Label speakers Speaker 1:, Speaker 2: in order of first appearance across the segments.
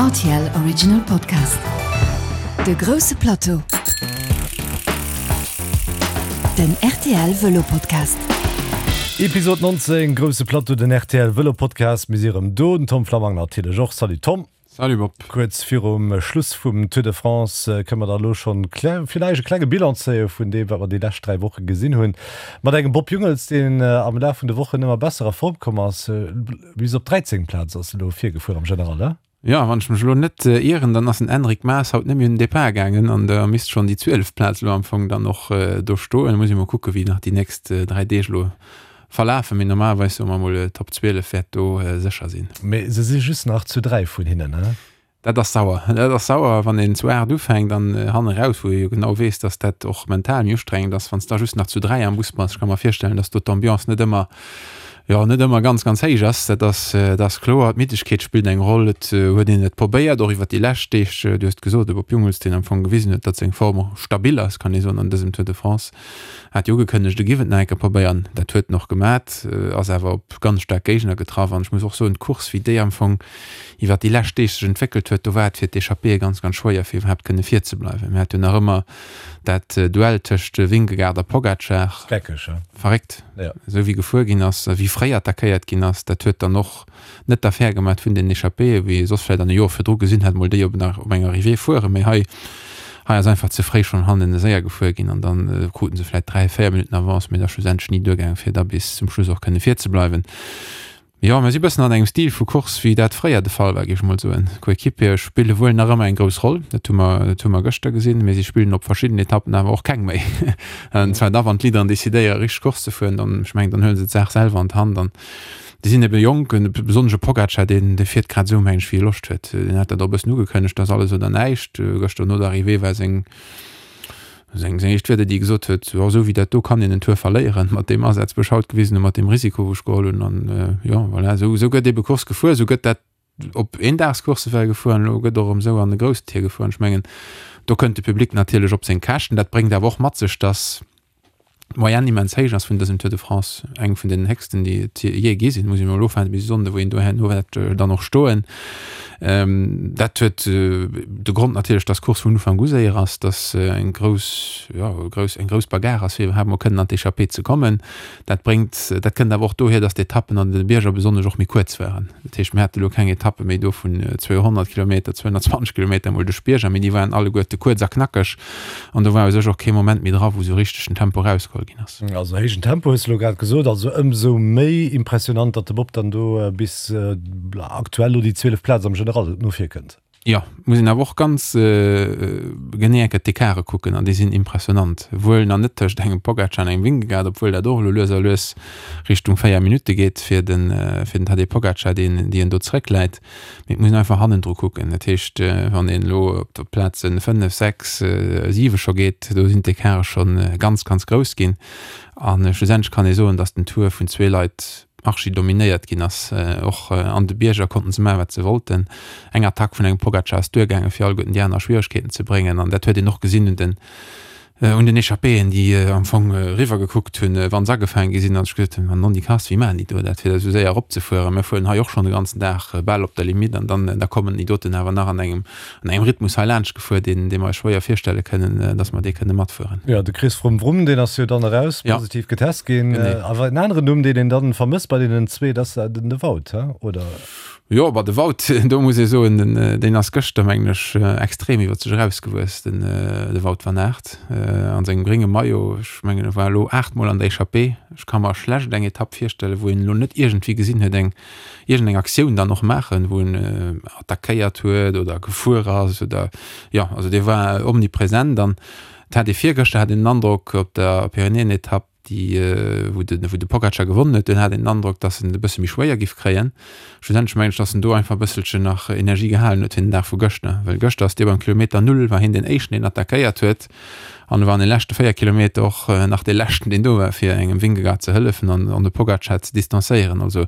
Speaker 1: Rtl Original Podcast. De grousse Plateau. Den rtl Vëlo Podcast.
Speaker 2: Episode 19, Grousse Plateau, den rtl Vëlo Podcast. Mir si erëm do, den Tom Flammang natierlech och. Salut Tom.
Speaker 3: Salut Bob.
Speaker 2: Kuerz virum Schluss vum Tour de France kënne mer da elo schonn villäicht e klenge Bilan zéie vun deem, wat mer déi lescht 3 Woche gesinn hunn. Mat engem Bob Jungels, deen am Laf vun de Wochen ëmmer besser a Form komm ass. Bis op 13. Plaz ass elo virgefuer am General, he?
Speaker 3: Jo, wann ech mech elo net ieren, dann ass den Enric Mas haut net méi un den Depart gaangen an da misst schonn déi 12. Plaz elo am Fong dann och do stoen. Muss ee mol kucke wéi nach déi nächst 3 Deeg elo verlafen, mee normalerweis soe mer mol Top 12 wäert do sécher sinn.
Speaker 2: Mee se si just nach zu 3 vun hinnen, he?
Speaker 3: Dat ass sauer. Dat ass sauer, wann een zu 8 ufänkt an hanne raus, wou ee jo genau weess, dass dat och mental méi ustrengend ass, wann s da just nach zu 3 am Bus bass. Ech ka mer virstellen, dass do d'Ambiance net ëmmer, jo, net ëmmer ganz, ganz héich ass. Dat ass, dat ass kloer. D'Middegkeet spillt eng Roll. Et huet een et probéiert, och iwwer déi lescht Deeg. Du hues et gesot, de Bob Jungels, deen am Fong gewisen huet, datt seng Form stabil ass, kann ee soen, an dësem Tour de France. Hat jo ugekënnegt, e giff et nach eng Kéier probéieren. Dat huet en och gemat, ass awer op ganz staark Géigner getraff. An ech muss och soen, d'Course, wéi déi am Fong iwwer déi lescht Deeg sech entwéckelt huet, do war et fir d'Echappéeë ganz, ganz schwéier, fir iwwerhaapt kënne virzebleiwen. Mir hate jo nach ëmmer dat Duell tëscht Vingegaard a Pogacar.
Speaker 2: Geckeg, he?
Speaker 3: Verréckt, esou wéi gefuer ginn ass, wéi fréi attackéiert ginn ass. Dat huet dann och net d'Affär gemat vun den Echappéeë, wéi ee soss vläit an de Joer virdru gesinn hätt, mol déi op nach op enger Arrivée fueren, mee hei hei ass einfach ze fréi schonn hannen séier gefuer ginn an dann kruten se vläit 3, 4 Minutten Avance, mee et ass schlussendlech ni duergaangen, fir da bis zum Schluss och kënne virzebleiwen. Jo, mir si bëssen an engem Stil vu Course, wéi dat fréier de Fall war, géif ech mol soen. D'Coéquipiere spille wuel nach ëmmer eng grouss Roll, dat hu mer dat hu mer gëschter gesinn, mee si spillen op verschidden Etappen awer och keng méi. An zwar da wann d'Leaderen decidéiere richteg Course ze fueren, dann, ech mengen, dann huele se d'Saach selwer an d'Hand an Déi sinn ebe jonk, besonnesch e Pogacar, deen dee fiert grad esou, meng ech, wéi e Loscht huet. Deen hat dat och e bëssen ugekënnegt, dass alles oder näischt. Gëschter no der Arrivée war seng seng seng éischt Wierder, déi e gesot huet, Jo, esou wéi dat do kann een en Tour verléieren, mat deem Asaz, wou ech haut gewisen hunn, mat deem Risiko, wou ech geholl hunn. An jo, voilà, esou esou gëtt ebe Course gefuer, esou gëtt dat op Eendagscoursse well gefuer an elo gëtt och erëm esou an de groussen Tier gefuer. An ech mengen, do kënnt de Public natierlech op seng Käschten. Dat bréngt awer och mat sech, dass d'Moyenne immens héich ass vun dësem Tour de France, eng vun den héchsten, déi et jee gi sinn, muss een emol ofwaarden bis e Sonnde wou een do herno wäert dann och stoen. Dat huet de Grond natierlech, dass d'Course vun Ufank u séier ass, dass eng grouss, jo grouss, eng grouss Bagarre ass, fir iwwerhaapt mol kënnen an d'Echappée ze kommen. Dat bréngt, dat kënnt awer och dohier, dass d'Etappen an de Bierger besonnesch och méi kuerz waren. Dat heescht, mir hate lo keng Etappe méi do vun 200 Kilometer, 220 Kilometer emol duerch d'Bierger, mee déi waren alleguerte kuerz a knackeg an do war u sech och kee Moment méi dra, wou esou richteg den Tempo erausgeholl ginn ass.
Speaker 2: Also héijen Tempo hues de lo grad gesot, also ëmsou méi impressionant, datt de Bob dann do bis aktuell lo déi 12 Plaz am General no vir kënnt.
Speaker 3: Jo, muss een awer och ganz genee eng Kéier d'Ecarte kucken an déi sinn impressionant. Wuel nach net tëscht engem Pogacar an engem Vingegaard, obwuel dat och elo lues a lues Richtung 4 Minutte geet fir den fir den Tadej Pogacar, deen déi en do zeréckläit. Mee et muss een einfach hannendru kucken. Dat heescht, wann een elo op d'Plazen 5, 6, 7 scho geet, do sinn d'Ecarte schonn ganz, ganz grouss ginn. A schlussendlech kann ee soen, datt den Tour vun zwee Leit archi dominéiert ginn ass. Och an de Bierger konnten se maachen, wat se wollten. Eng Attack vun engem Pogacar ass duergaangen, fir alleguerten déi aner a Schwieregkeeten ze bréngen. An dat huet een och gesinn un den un den Echappéen, déi am Fong eriwwer gekuckt hunn, wa se agefaange gi sinn a sech gesot hunn, Nonni Kass, wéi maachen déi do dat, fir esou séier eropzefueren? Mir fueren hei och schonn de ganzen Dag bal op der Limitt an dann da kommen déi doten awer nach an engem an engem Rhythmus hei laanscht gefuer, deen dee mer eis schwéier virstelle kënnen, dass mer dee kënne matfueren.
Speaker 2: Jo, de Chris Froome Wrum, deen ass jo dann eraus, positiv getest ginn. Awer en aneren Numm, deen een dann vermësst bei deenen zwee, dat ass den de Wout, he, oder?
Speaker 3: Jo, bah de Wout, do muss ee soen, den deen ass gëschter, mengen ech, extrem iwwer sech erausgewuess, den de Wout van Aert an sengem grénge Maillot. Ech mengen, e war elo aachtmol an der Echappée. Ech ka mer schlecht eng Etapp virstellen, wou een elo net iergendwéi gesinn huet, eng iergendeng Aktioun dann och maachen, wou en attackéiert huet oder gefuer ass oder jo, also dee war omnipresent an et hat ee virgëschter hat een den Androck op der Pyrenäenetapp, déi wou de wou de Pogacar gewonnen huet, dunn hat een den Androck, datt en et e bësse méi schwéier giff kréien. Schlussendlech mengen ech, datt en do einfach e bësselchen nach Energie gehalen huet fir den Dag vu gëschter, well gëschter ass dee beim Kilometer Null war hien deen éischten, deen attackéiert huet. An e war an de leschte 4 Kilometer och nach dee leschten, deen do war, fir engem Vingegaard ze hëllefen an an de Pogacar ze distanzéieren. Also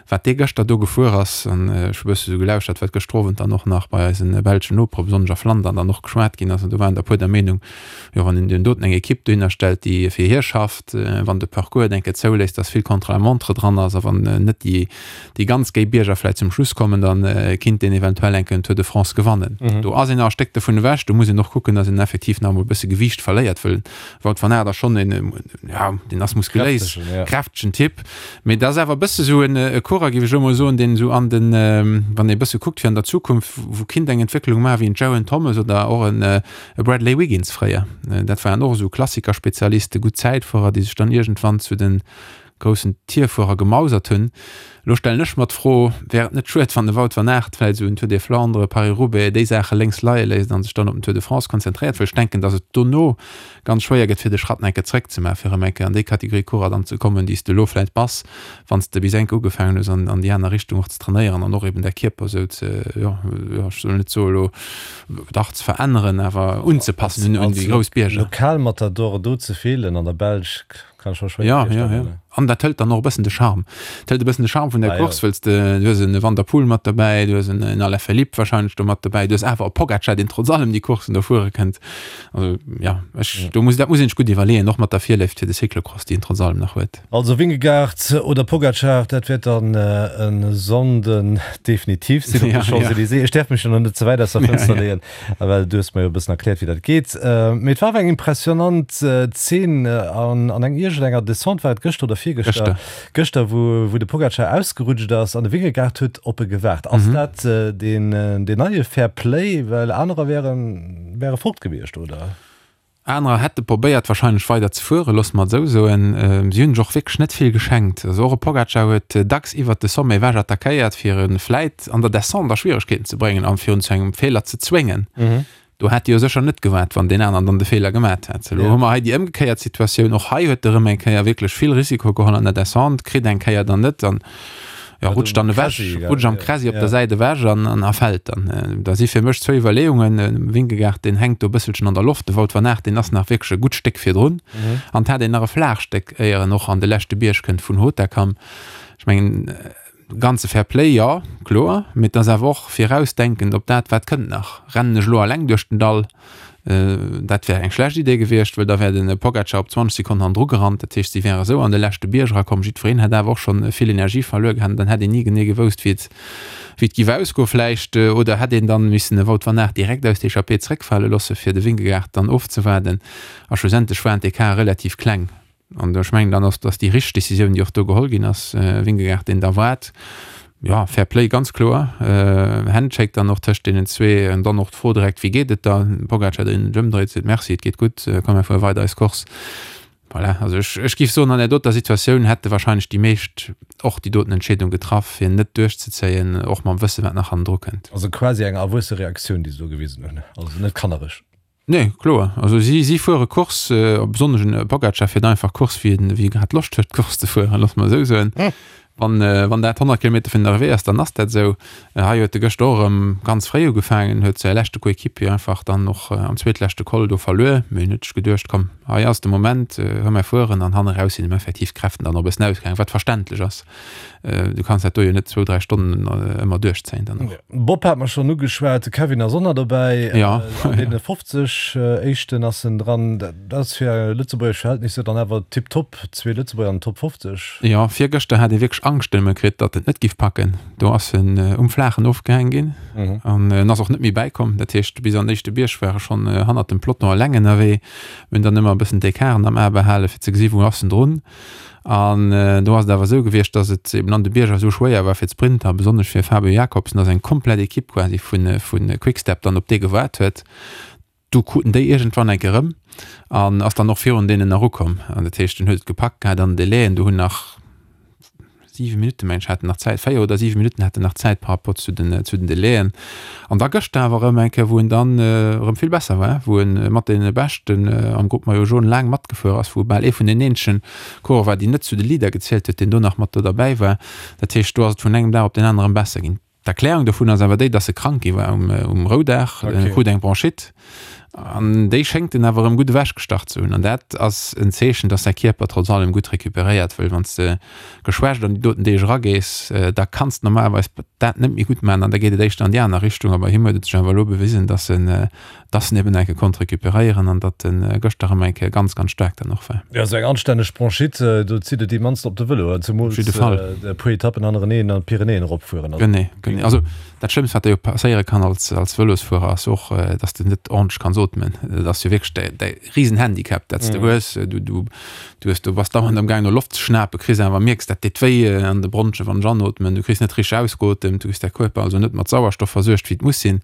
Speaker 3: wat dee gëschter do gefuer ass, an ech hu bësse sou gelauschtert, wat gëschter Owend dann och nach bei eisen belschen Nopere, besonnesch a Flandern, dann och geschwat ginn ass, an do waren der e puer der Meenung, jo wann een deen doten eng Ekipp dohinner stellt, déi fir hie schafft, wann de Parcours et eng Kéier zouléisst, dass vill Contre-la-montre dran ass a wann net déi déi ganz géi Bierger vläit zum Schluss kommen, da kinnt deen eventuell eng Kéier den Tour de France gewannen. Do ass een nach e Stéck dovun ewech. Do muss een och kucken, dass een effektiv nach emol e bësse Gewiicht verléiert, wëll Wout van Aert ass schonn een, ja, deen ass muskuléis, kräftegen Typ. Mee dat ass awer e bësse sou e Coureur, géif ech elo mol soen, deen esou an den, wann ee bësse kuckt fir an der Zukunft, wou kinnt eng Entwécklung maachen, wéi en Geraint Thomas oder och en Bradley Wiggins fréier. Dat waren och esou Klassikerspezialisten, gutt Zäitfuerer, déi sech dann iergendwann zu de groussen Tierfuerer gemausert hunn. Elo stellen ech mer d'Fro, Wär et net schued, wann de Wout van Aert vläicht esou en Tour des Flandres, Paris-Roubaix, déi Saache lénks leie léisst a sech dann op den Tour de France konzentréiert? Well ech denken, datt et dono ganz schwéier gëtt, fir de Schratt nach eng Kéier zréckzemaachen, fir erëm eng Kéier an déi Kategorie Coureur dann ze kommen, déi s de elo vläicht bass, wann s de bis eng Kéier ugefaangen hues, an an déi aner Richtung och ze trainéieren an och eben däi Kierper esou ze, jo, jo, ech soll net soe elo, dach ze veränneren, awer unzepassen un déi grouss Bierger.
Speaker 2: Lokalmatadore do ze feelen an der Belsch, Kann ech mer schwéier
Speaker 3: Ja, ja, ja. virstellen. An dat hëlt dann och e bëssen de Charme. Dat hëlt e bëssen de Charme vun der Ah, ja. Course, wëlls de, du hues en Van der Poel mat derbäi, du hues en, en Alaphilippe wahrscheinlech do mat derbäi, du hues awer e Pogacar, deen trotz allem déi Courssen do fuere kënnt. Also, ja, ech, do muss, dat muss een sech gutt iwwerleeën, och mat der Virléift fir de Cyclocross, déi en trotz allem nach huet.
Speaker 2: Also Vingegaard oder Pogacar, dat wäert dann e Sonnden definitiv sinn op de Ja, ja. Champs-Élysées. Ech däerf mech jo nach net ze wäit aus der Ja, Fënster ja. leeën. Well du hues mer jo e bëssen erkläert, wéi dat geet. Mee et war awer eng impressionant Zeen an an eng iergendenger Descente, war et gëschter oder virgëschter? Gëschter. Gëschter, wou wou de Pogacar ausgerutscht ass an de Vingegaard huet op e gewaart. Ass dat deen deen neie Fair Play? Well anerer wären wäre fort gewiescht, oder?
Speaker 3: Anerer hätte probéiert wahrscheinlech weider ze fueren, loosse mer et esou soen. Si hunn sech och wierklech net vill geschenkt. Also och e Pogacar huet dacks iwwert de Sommet ewech attackéiert, fir e vläit an der Descente a Schwieregkeeten ze bréngen a fir en zu engem Feeler ze zwéngen. Do hätt e jo sécher net gewaart, wann deen aneren dann de Feeler gemat hätt. Elo hu mer hei déi ëmgekéiert Situatioun. Och hei huet e rëm eng Kéier wierklech vill Risiko geholl an der Descente, kritt eng Kéier dann net an jo, rutscht dann ewech, rutscht am Kräsi op der Säit ewech an, an a fält dann. Da si fir mech zwou Iwwerleeungen, Vingegaard, deen hänkt do e bësselchen an der Loft, de Wout van Aert, deen ass nach wierklech e gutt Stéck virdrun an et hat een nach e Flaagstéck, éier en och an de leschte Bierg kënnt vun Hautacam. Ech mengen, ganze Fair Play, jo, kloer, mee et ass awer och virausdenkend op dat, wat kënnt nach. Rennen ech elo alleng duerch den Dall? Dat wär eng schlecht Idee gewiescht, well da wär de Pogacar op 20 Sekonnen hannendru gerannt. Dat heescht, si wäre sou an de leschte Bierg erakomm. Jiddwereen hätt awer och scho vill Energie verluer gehat an dann hätt een ni genee gewousst, wéi et wéi et giff ausgoen vläicht. Oder hätt een dann missen de Wout van Aert direkt aus der Echappée zréckfale loosse fir de Vingegaard dann ofzewaarden. A schlussendlech waren d'Ecarten relativ kleng. An ech mengen, dann ass dass déi richteg Décisioun, déi och do geholl ginn ass, Vingegaard, deen da waart. Jo, Fair Play, ganz kloer. Handshake dann och tëscht deenen zwee. An dann och d'Fro direkt, Wéi geet et der? Pogacar, deen sech ëmdréit, seet, Merci, et geet gutt, komm mir fuere weider eis Course. Voilà, also ech, ech géif soen, an där doter Situatioun hätte wahrscheinlech déi meescht och déi doten Entscheedung getraff, fir net duerchzezéien, och mam Wësse wat nach hannendru kënnt.
Speaker 2: Also quasi eng erwuesse Reaktioun, déi se do gewisen hunn, also net kannereg.
Speaker 3: Nee, kloer. Also si, si fuere Course, besonnesch en Pogacar fiert einfach Course, wéi en, wéi e grad Loscht huet Course ze fueren, loosse mer esou soen. Wann, wann dat 100 Kilometer virun der Arrivée ass, dann ass dat esou. Hei huet e gëschter och erëm ganz fréi ugefaangen, huet säi leschte Coéquipier einfach dann och am zweetleschte Col do verluer. Mee en huet sech geduecht, komm, hei ass de Moment, hou mer fueren. An hanne raus sinn em effektiv d'Kräften dann och e bëssen ausgaangen, wat verständlech ass. Du kanns dat do jo net zwou, dräi Stonnen ëmmer duerchzéien dann
Speaker 2: och. Bob hat mer schonn ugeschwat, de Kevin ass och nach dobäi.
Speaker 3: Ja.
Speaker 2: An deene 50 éischten ass en dran. Dat ass fir lëtzebuergesch Verhältnisser dann awer tiptop, zwee Lëtzebuerger an den Top 50.
Speaker 3: Jo, virgëschter hat ee wierklech Angscht ëmme kritt, datt en et net giff packen. Do ass en um Flaachen ofgehaang ginn an en ass och net méi bäikomm. Dat heescht, bis an den éischte Bierg war e schonn hannert dem Peloton eleng ënnerwee. Mir hunn dann ëmmer e bëssen d'Ecarten am A behalen, fir ze gesi wou ass en drun. An do ass et awer esou gewiescht, datt et eben an de Bierger esou schwéier war fir d'Sprinter, besonnesch fir Fabio Jakobsen, datt eng komplett Ekipp quasi vu vu Quick-Step dann op dee gewaart huet. Du kruten déi iergendwann eng Kéier erëm an ass dann och virun deenen erukomm. An dat heescht, en huet et gepackt gehat an den Delaien, do hunn nach 7 Minutten, mengen ech, hat en nach Zäit, 4 oder 7 Minutten hat en nach Zäit par rapport zu den, zu den Delaien. An da gëschter awer erëm eng Kéier, wou en dann erëm vill besser war, wou en mat deene Beschten am Groupe Maillot Jaune laang matgefuer ass, wou e bal ee vun den eenzegen Coureur war, deen net zu de Leader gezielt huet, deen do nach mat do derbäi war. Dat heescht, do ass et vun engem Dag op deen aneren besser ginn. D'Erklärung dovun ass awer déi, dass e krank gi war um, um Roudag. En krut eng Bronchite. An déi schéngt en awer erëm gutt ewechgestach ze hunn. An dat ass en Zeechen, dass säi Kierper trotz allem gutt recuperéiert, wëll wann s de geschwächt an déi doten Deeg eragees, da kanns de normalerweis dat net méi gutt maachen an da geet et éischter an déi aner Richtung. A bei him huet et sech awer elo bewisen, dass en, dass en eben eng Kéier konnt recuperéieren an datt en gëschter erëm eng Kéier ganz, ganz staark dann och war.
Speaker 2: Jo, esou eng anstänneg Bronchite, do zitt et immens op de Vëlo, zemools e puer Etappen hannereneen an d'Pyrenäen eropfueren.
Speaker 3: Genee, genee. Also Dat Schlëmmst, wat der jo passéiere kann als, als Vëlosfuerer, ass och, dass de net ordentlech kanns ootmen. Dat ass jo wierklech däi, däi Risenhandicap, dat s de hues. Du, du, du hues, du bass dauernd am Gaang no Loft ze schnapen, kriss awer, mierks, dat deet wéi an de Bronchen, wann ech anootmen. Du kriss net richteg ausgeotemt, du kriss däi Kierper also net mat Sauerstoff versuergt, wéi et muss sinn.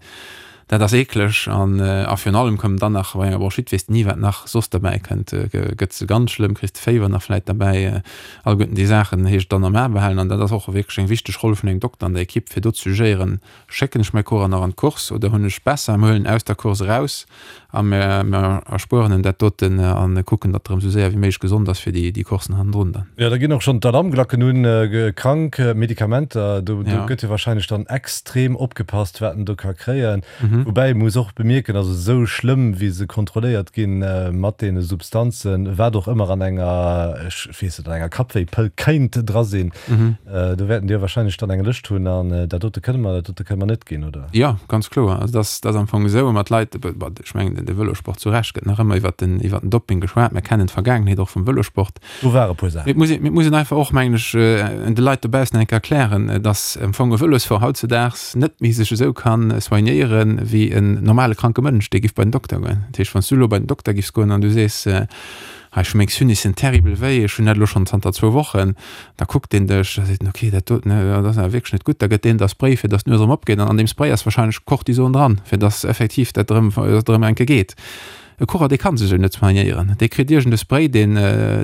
Speaker 3: Dat ass eekleg an, a virun allem koum dann nach, bei enger Bronchite weess de ni, wat nach soss derbäi kënnt. Gëtt se ganz schlëmm, kriss de Féiwer nach vläit derbäi. Alleguerten déi Saachen heescht et dann am A behalen an dat ass och wierklech eng wichteg Roll vun engem Dokter an der Ekipp, fir do ze jugéieren, Schécken ech mäi Coureur nach an d'Course oder hunn ech besser, mir huelen en aus der Course eraus a mir erspueren em dat doten a kucken, datt e rëm esou séier wéi méiglech gesond ass fir déi Coursen hannendrun dann.
Speaker 2: Jo, da ginn och schonn d'Alarmglacken un, krank, Medikamenter, do gëtt jo wahrscheinlech dann extrem opgepasst, wat en do ka kréien. Woubäi ee muss och bemierken, also esou schlëmm wéi se kontrolléiert ginn mat deene Substanzen, wat och ëmmer an enger, ech weess net, an enger Kappwéipëll kéint dra sinn, do wäerten déi jo wahrscheinlech dann eng Lëscht hunn an dat dote kënne mer, dat dote kënne mer net ginn, oder?
Speaker 3: Jo, ganz kloer. Also dat ass, dat ass am Fong esou, mat Leit, bon, ech mengen de Vëlosport zu Recht gëtt nach ëmmer iwwert den, iwwert den Doping geschwat. Mir kennen d'Vergaangenheet och vum Vëlosport.
Speaker 2: Do ware puer Saachen.
Speaker 3: Mee et muss een, mee et muss een einfach och, mengen ech, de Leit dobaussen eng Kéier erklären, dass am Fong e Vëlosfuerer hautzedaags net méi sech esou ka soignéiere wéi en normale kranke Mënsch, dee giff bei den Dokter goen. Dat heescht, wann s du elo bei den Dokter giffs goen an du sees, Hei, ech hu meng Sinussen terribel wéi, ech hunn dat elo schonn zanter zwou Wochen, da kuckt deen dech, da seet en, okay, dat doten, dat ass awer wierklech net gutt. Da gëtt deen der Spray, fir dass d'Nues erëm opgeet an an deem Spray ass warscheinlech Cortison dran, fir dass effektiv dat erëm, dass et erëm eng Kéier geet. E Coureur, dee kann sech esou net soignéieren. Dee kritt iergend e Spray, deen,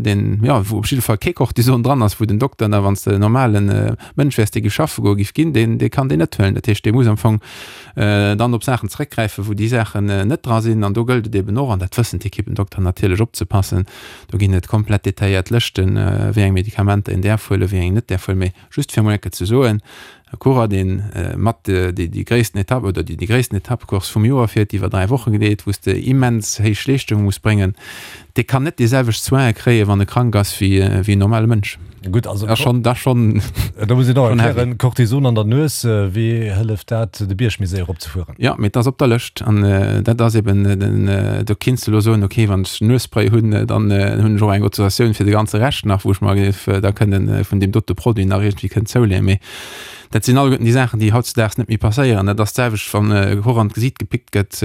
Speaker 3: deen, jo, wou op jidde Fall kee Cortison dran ass, wou den Dokter da, wann s de en normale Mënsch wäers, dee giff schaffe goen, giff ginn, deen, dee kann deen net huelen. Dat heescht, dee muss am Fong dann op Saachen zeréckgräifen, wou déi Saachen net dra sinn. An do gëllt et eben och, an dat wëssen d'Ekippendokter natierlech, opzepassen. Do ginn et komplett detailléiert Lëschten, wéi eng Medikamenter een däerf huelen, wéi eng een net däerf huelen. Mee just fir emol eng Kéier ze soen, E Coureur, deen mat déi gréissten Etapp oder déi gréissten Etappecourse vum Joer fiert, déi iwwer 3 Woche geet, wou s de immens héich Leeschtunge muss bréngen, dee kann net déi selwecht Soine kréien, wann e krank ass, wéi en normale Mënsch.
Speaker 2: Gutt, also
Speaker 3: Dat ass schonn, dat ass schonn,
Speaker 2: Da muss een och erklären, Cortison an der Nues, wéi hëlleft dat, de Bierg méi séier eropzefueren?
Speaker 3: Jo, mee et ass op der Lëscht an dat ass eben den, do kinns de elo soen, okay, wann ech Nuesspray hunn, dann hunn ech och eng Autorisatioun fir de ganze Rescht nach, wou ech mer géif da kënnen vun deem dote Produit nach iergendwéi kënnen zouleeën. Mee Dat sinn alleguerten déi Saachen, déi hautzedaags net méi passéieren. Dat ass d'selwecht, wann e Koch an d'Gesiit gepickt gëtt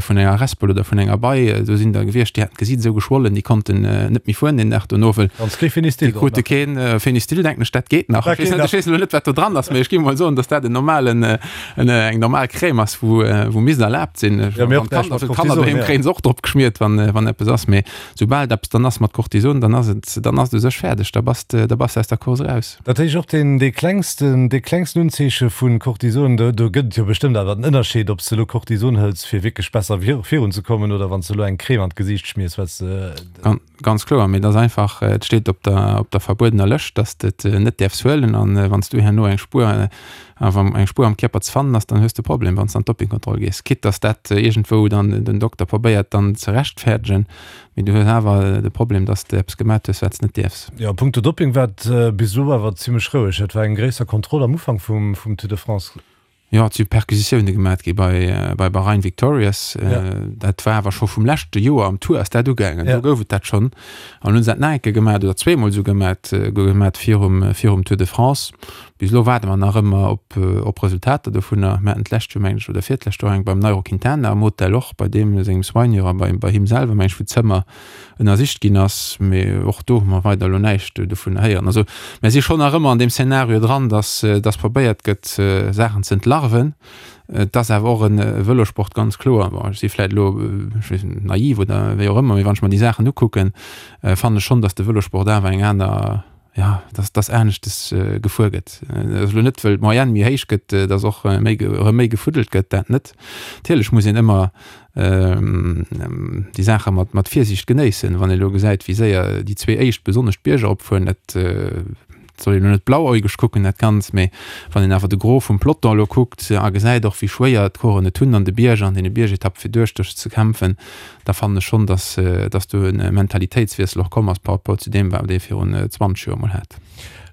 Speaker 3: vun enger Respel oder vun enger Bei. Do sinn der gewiescht, déi haten d'Gesiit esou geschwollen, déi konnten net méi fueren deen Dag dono, wëll
Speaker 2: Wann s kee Fenistil
Speaker 3: déi
Speaker 2: drop
Speaker 3: krute
Speaker 2: nach.
Speaker 3: keen Fenistil, denken ech, dat geet nach.
Speaker 2: Dat
Speaker 3: Ech weess
Speaker 2: geet
Speaker 3: net,
Speaker 2: nach.
Speaker 3: ech weess elo net, wat do dran ass, mee ech géif mol soen, datt dat en normalen, en, eng normal Crème ass, wou, wou misst erlaabt sinn.
Speaker 2: Ja, mee och
Speaker 3: Wann
Speaker 2: näischt
Speaker 3: d'Kanner,
Speaker 2: mat
Speaker 3: fir d'Kanner
Speaker 2: Cortison,
Speaker 3: doheem
Speaker 2: ja.
Speaker 3: kréie se och drop geschmiert, wann, wann eppes ass. Mee soubal et eppes dann ass mat Cortison, dann ass et, dann ass et u sech fäerdeg, da bass de, da bass de aus der Course eraus.
Speaker 2: Dat heescht och deen, dee klengsten, dee klengsten Unzeeche vu Cortison, do, do gëtt et jo bestëmmt awer en Ënnerscheed, ob s de elo Cortison hëls, fir wierklech besser vir, virunzekommen, oder wann s de elo eng Crème an d'Gesiicht schmiers, wat s de.
Speaker 3: Ganz kloer, mee et ass einfach, et steet op der, op der verbuedener Lëscht, dass de et net däerfs huelen. An wann s du herno eng Spuer, wann eng Spuer am Kierper ze fannen ass, dann hues de e Problem, wann s de an d'Dopingkontroll gees. Quitte dass dat iergendwou dann den Dokter probéiert dann ze rechtfäerdegen, Mee du hues awer de Problem, dass de eppes gemat hues, wat s de net dierfs.
Speaker 2: Jo, a punkto Dopping war et bis elo awer zimmlech roueg. Et war eng gréisser Kontroll am Ufank vum Tour de France.
Speaker 3: Jo, et si Perquisitioune gemat gi bei bei Bahrain Victorious. Dat war awer scho vum leschte Joer am Tour ass dat ugaangen. Do gouf et dat schonn. An hunn se dat nach eng Kéier gemat oder zweemol esou gemat gemat virum virum Tour de France. Bis elo waarde mer nach ëmmer op op Resultater dovunner. Mir haten d'lescht Joer, mengen ech, oder virtläscht Joer eng beim Nairo Quintana am Hotel och, bei deem sengem Soigneur a bei bei him selwer, mengen ech, wou d'Zëmmer ënnersicht ginn ass. Mee och do hu mer weider elo näischt dovunner héieren. Also mer si schonn nach ëmmer an deem Szenario dran, dass dass probéiert gëtt, Saachen ze entlarven. Et ass awer och e Vëlosport, ganz kloer. Bon, ech si vläicht elo, ech weess net, naiv oder wéi och ëmmer, mee wann ech mer déi Saachen ukucken, fannen ech schonn, dass de Vëlosport awer eng aner, jo, dass dass aneschtes gefuer gëtt. Dat ass elo net, wëll d'Moyenne méi héich gëtt, dass och méi erëm méi gefuddelt gëtt, dat net. Natierlech muss een ëmmer déi Saache mat mat Virsiicht genéissen. Wann ee elo gesäit, wéi séier déi zwee éischt besonnesch d'Bierger opfueren, dat. Et soll een elo net blauäugeg kucken dat Ganzt, mee wann een awer de Gros vum Peloton elo kuckt a gesäit och wéi schwéier d'Coureuren et hunn an de Bierger, an deene Biergetappe fir duerch ze kämpfen, da fannen ech schonn, datt datt do e Mentalitéitswiessel och komm ass par rapport zu deem wat ee virun 20 Joer mol hat.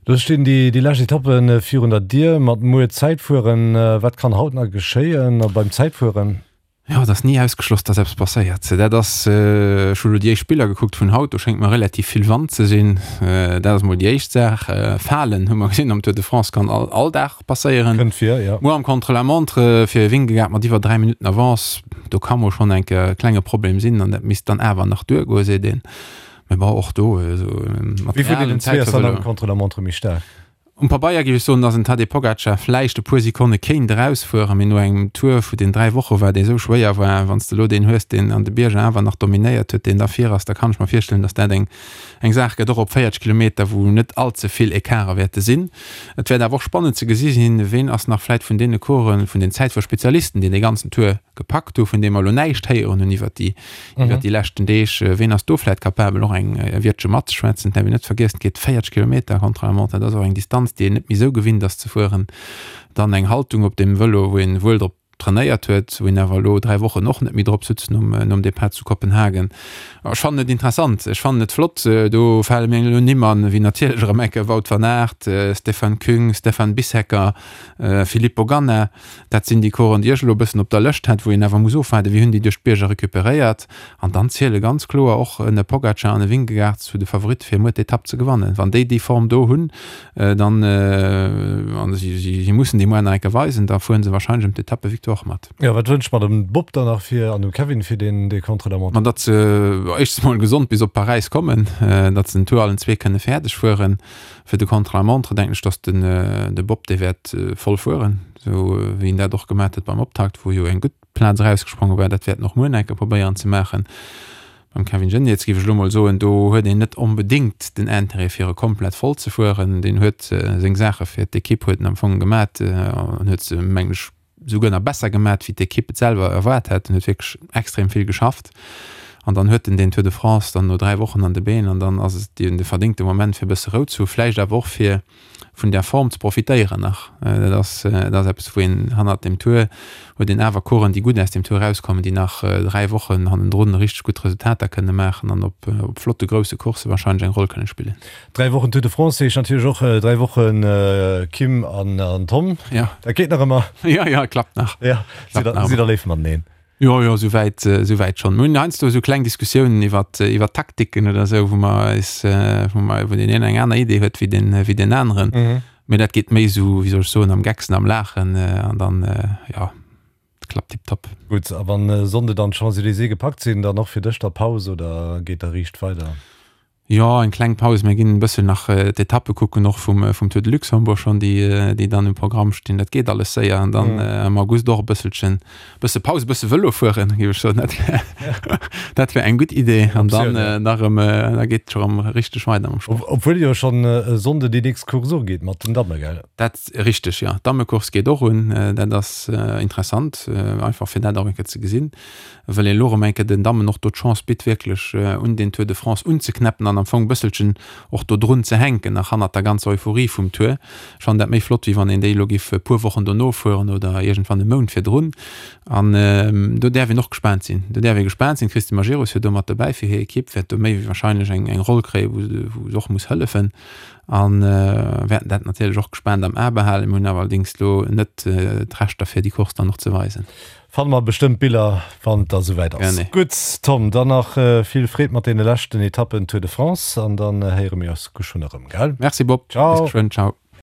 Speaker 2: Lo stinn déi déi lescht Etappe virun der Dier mat muer Zäitfueren. Wat kann haut nach geschéien beim Zäitfueren?
Speaker 3: Jo, et ass ni ausgeschloss, dass eppes passéiert. Dat ass, ech hu lo déi éischt Biller gekuckt vun haut, do schéngt mer relativ vill Wand ze sinn. Dat ass mol déi éischt Saach. Falen hu mer gesinn am Tour de France kann all, all Dag passéieren.
Speaker 2: Kënnt vir, jo.
Speaker 3: Muer am Contre-la-montre fir Vingegaard mat iwwer 3 Minutten Avance, do ka mol schonn eng Kéier e klenge Problem sinn an dat misst dann awer nach duergoen, seet een. Mee bon, och do, esou
Speaker 2: mat Wie vun deenen zwee ass dann am Contre-la-montre méi staark?
Speaker 3: Um Pabeier géif ech soen, dass en Tadej Pogacar vläicht e puer Sekonne kéint erausfueren, mee no engem Tour vu den 3 Woche war, dee sou schwéier war, wann s de elo deen hues, deen an de Bierger awer nach dominéiert huet, deen da vir ass, da kann ech mer virstellen, dass dat eng eng Saach gëtt, och op 40 Kilometer, wou net all ze vill Ecarte wäerte sinn. Et wäert awer och spannend ze gesi sinn, ween ass nach vläicht vun deene Coureuren, vun den Zäitfuerspezialisten, déi dee ganzen Tour gepackt hu, vun deem mer elo näischt héieren hunn iwwert déi iwwert déi leschten Deeg. Ween ass do vläit capabel och eng Wiertche matzeschwätzen? Et däerf een net vergiessen, et geet 40 Kilometer Contre-la-montre, dat ass och eng Distanz, déi een net méi esou gewinnt ass ze fueren. Dann eng Haltung op dem Vëlo, wou een wuel drop trainéiert huet, wou een awer elo 3 Wochen och net méi drop sutz nom nom Depart zu Kopenhagen. Ech fannen et interessant, ech fannen et flott. Do fale mir elo Nimm an, wéi natierlech erëm eng Kéier Wout van Aert, Stefan Küng, Stefan Bissegger, Filippo Ganna. Dat sinn déi Coursen, déi ech elo e bëssen op der Lëscht hat, wou een awer muss ofwaarden, wéi hunn déi duerch d'Bierger recuperéiert. An dann ziele ganz kloer och en Pogacar an e Vingegaard zu de Favoritte fir muer d'Etapp ze gewannen. Wann déi déi Form do hunn, dann, a si mussen déi muer nach eng Kéier weisen, da fuere se warscheinlech ëm d'Etappevictoire mat.
Speaker 2: Jo, wat wënscht mer dem Bob dann nach fir an dem Kevin fir deen dee Contre-la-montre?
Speaker 3: Ma datt se éischtens mol gesond bis op Paräis kommen, datt se den Tour allen zwee kënne fäerdeg fueren. Fir de Contre-la-montre denken ech, dass den de Bob dee wäert voll fueren, esou wéi en dat och gemat huet beim Optakt, wou jo eng gutt Plaz erausgespronge war. Dat wäert en och muer nach eng Kéier probéieren ze maachen. Beim Kevin Geniets géif ech elo mol soen, do huet een net onbedéngt den Intérêt fir e komplett voll ze fueren. Deen huet seng Saache fir d'Ekipp huet en am Fong gemat an huet se mengen ech souguer nach besser gemat wéi d'Ekipp et selwer erwaart hat. En huet wierklech extrem vill geschafft an dann huet en den Tour de France dann no 3 Wochen an de Been an dann ass et de verdéngte Moment fir e bësse Rou ze hu, vläicht awer och fir vun där Form ze profitéieren nach. Dat ass dat ass eppes wou een hannert dem Tour huet een awer Coureuren déi gutt aus dem Tour erauskommen, déi nach 3 Wochen hannendrun richteg gutt Resultater kënne maachen an op op flotte grousse Coursse warscheinlech eng Roll kënne spillen.
Speaker 2: 3 Wochen Tour de France heescht natierlech och 3 Wochen Kim an Tom.
Speaker 3: Ja.
Speaker 2: Dat geet nach ëmmer.
Speaker 3: Ja, ja, klappt nach.
Speaker 2: Ja, sidd der, sidd der léif mateneen?
Speaker 3: Jo, jo, souwäit, souwäit schonn. Mir hunn heiansdo esou kleng Diskussiounen iwwer, iwwer Taktiken oder esou, wou mer eis, wou mer, wou deen een eng aner Idee huet wéi deen, wéi deen aneren. Mee dat geet méi esou, wéi soll ech soen, am Gecksen, am Laachen an dann, jo, klappt tiptop.
Speaker 2: Gutt, a wann e Sonnde dann d'Champs-Élysées gepackt sinn, dann och fir dech da Paus oder geet da riicht weider?
Speaker 3: Jo, eng kleng Paus. Mir ginn e bëssen nach d'Etappe kucken, och vum, vum Tour de Luxembourg schonn, déi, déi dann um Programm stinn. Dat geet alles séier. An dann am August och e bësselchen, bësse Paus, e bësse Vëlo fueren, géif ech soen. Dat wär, dat wär eng gutt Idee. An dann nach erëm, da geet et scho erëm richteg weider mam
Speaker 2: Sport. Obwuel jo schonn e Sonnde déi nächst Course ugeet mat den Damme, gell?
Speaker 3: Dat, richteg, jo. D'Dammecourse geet och un. Dat ass interessant, einfach fir dat och eng Kéier ze gesinn. well een elo erëm eng Kéier den Dammen och do d'Chance bitt, wierklech un den Tour de France unzeknäppen an am Fong e bësselchen och do drun ze hänken, nach hannert der ganzer Euphorie vum Tour. Ech fannen dat méi flott, wéi wann een déi elo géif e puer Wochen dono fueren oder iergendwann e Mount virdrun. An do däerf een och gespaant sinn. Do däerf ee gespaant sinn. D'Christine Majerus ass jo do mat dobäi fir hir Ekipp, wäert do méi wéi wahrscheinlech eng eng Roll kréien, wou se wou se och muss hëllefen. A wäerten dat natierlech och gespaant am A behalen. Mir hunn awer allerdéngs elo net d'Rechter, fir déi Course dann och ze weisen.
Speaker 2: Fanne mer bestëmmt Biller wann et da souwäit ass. Gutt Tom, dann nach vill Freed mat deene leschten Etappen Tour de France an dann héiere mir eis geschwënn erëm, gell?
Speaker 3: Merci Bob,
Speaker 2: bis
Speaker 3: geschwënn, ciao.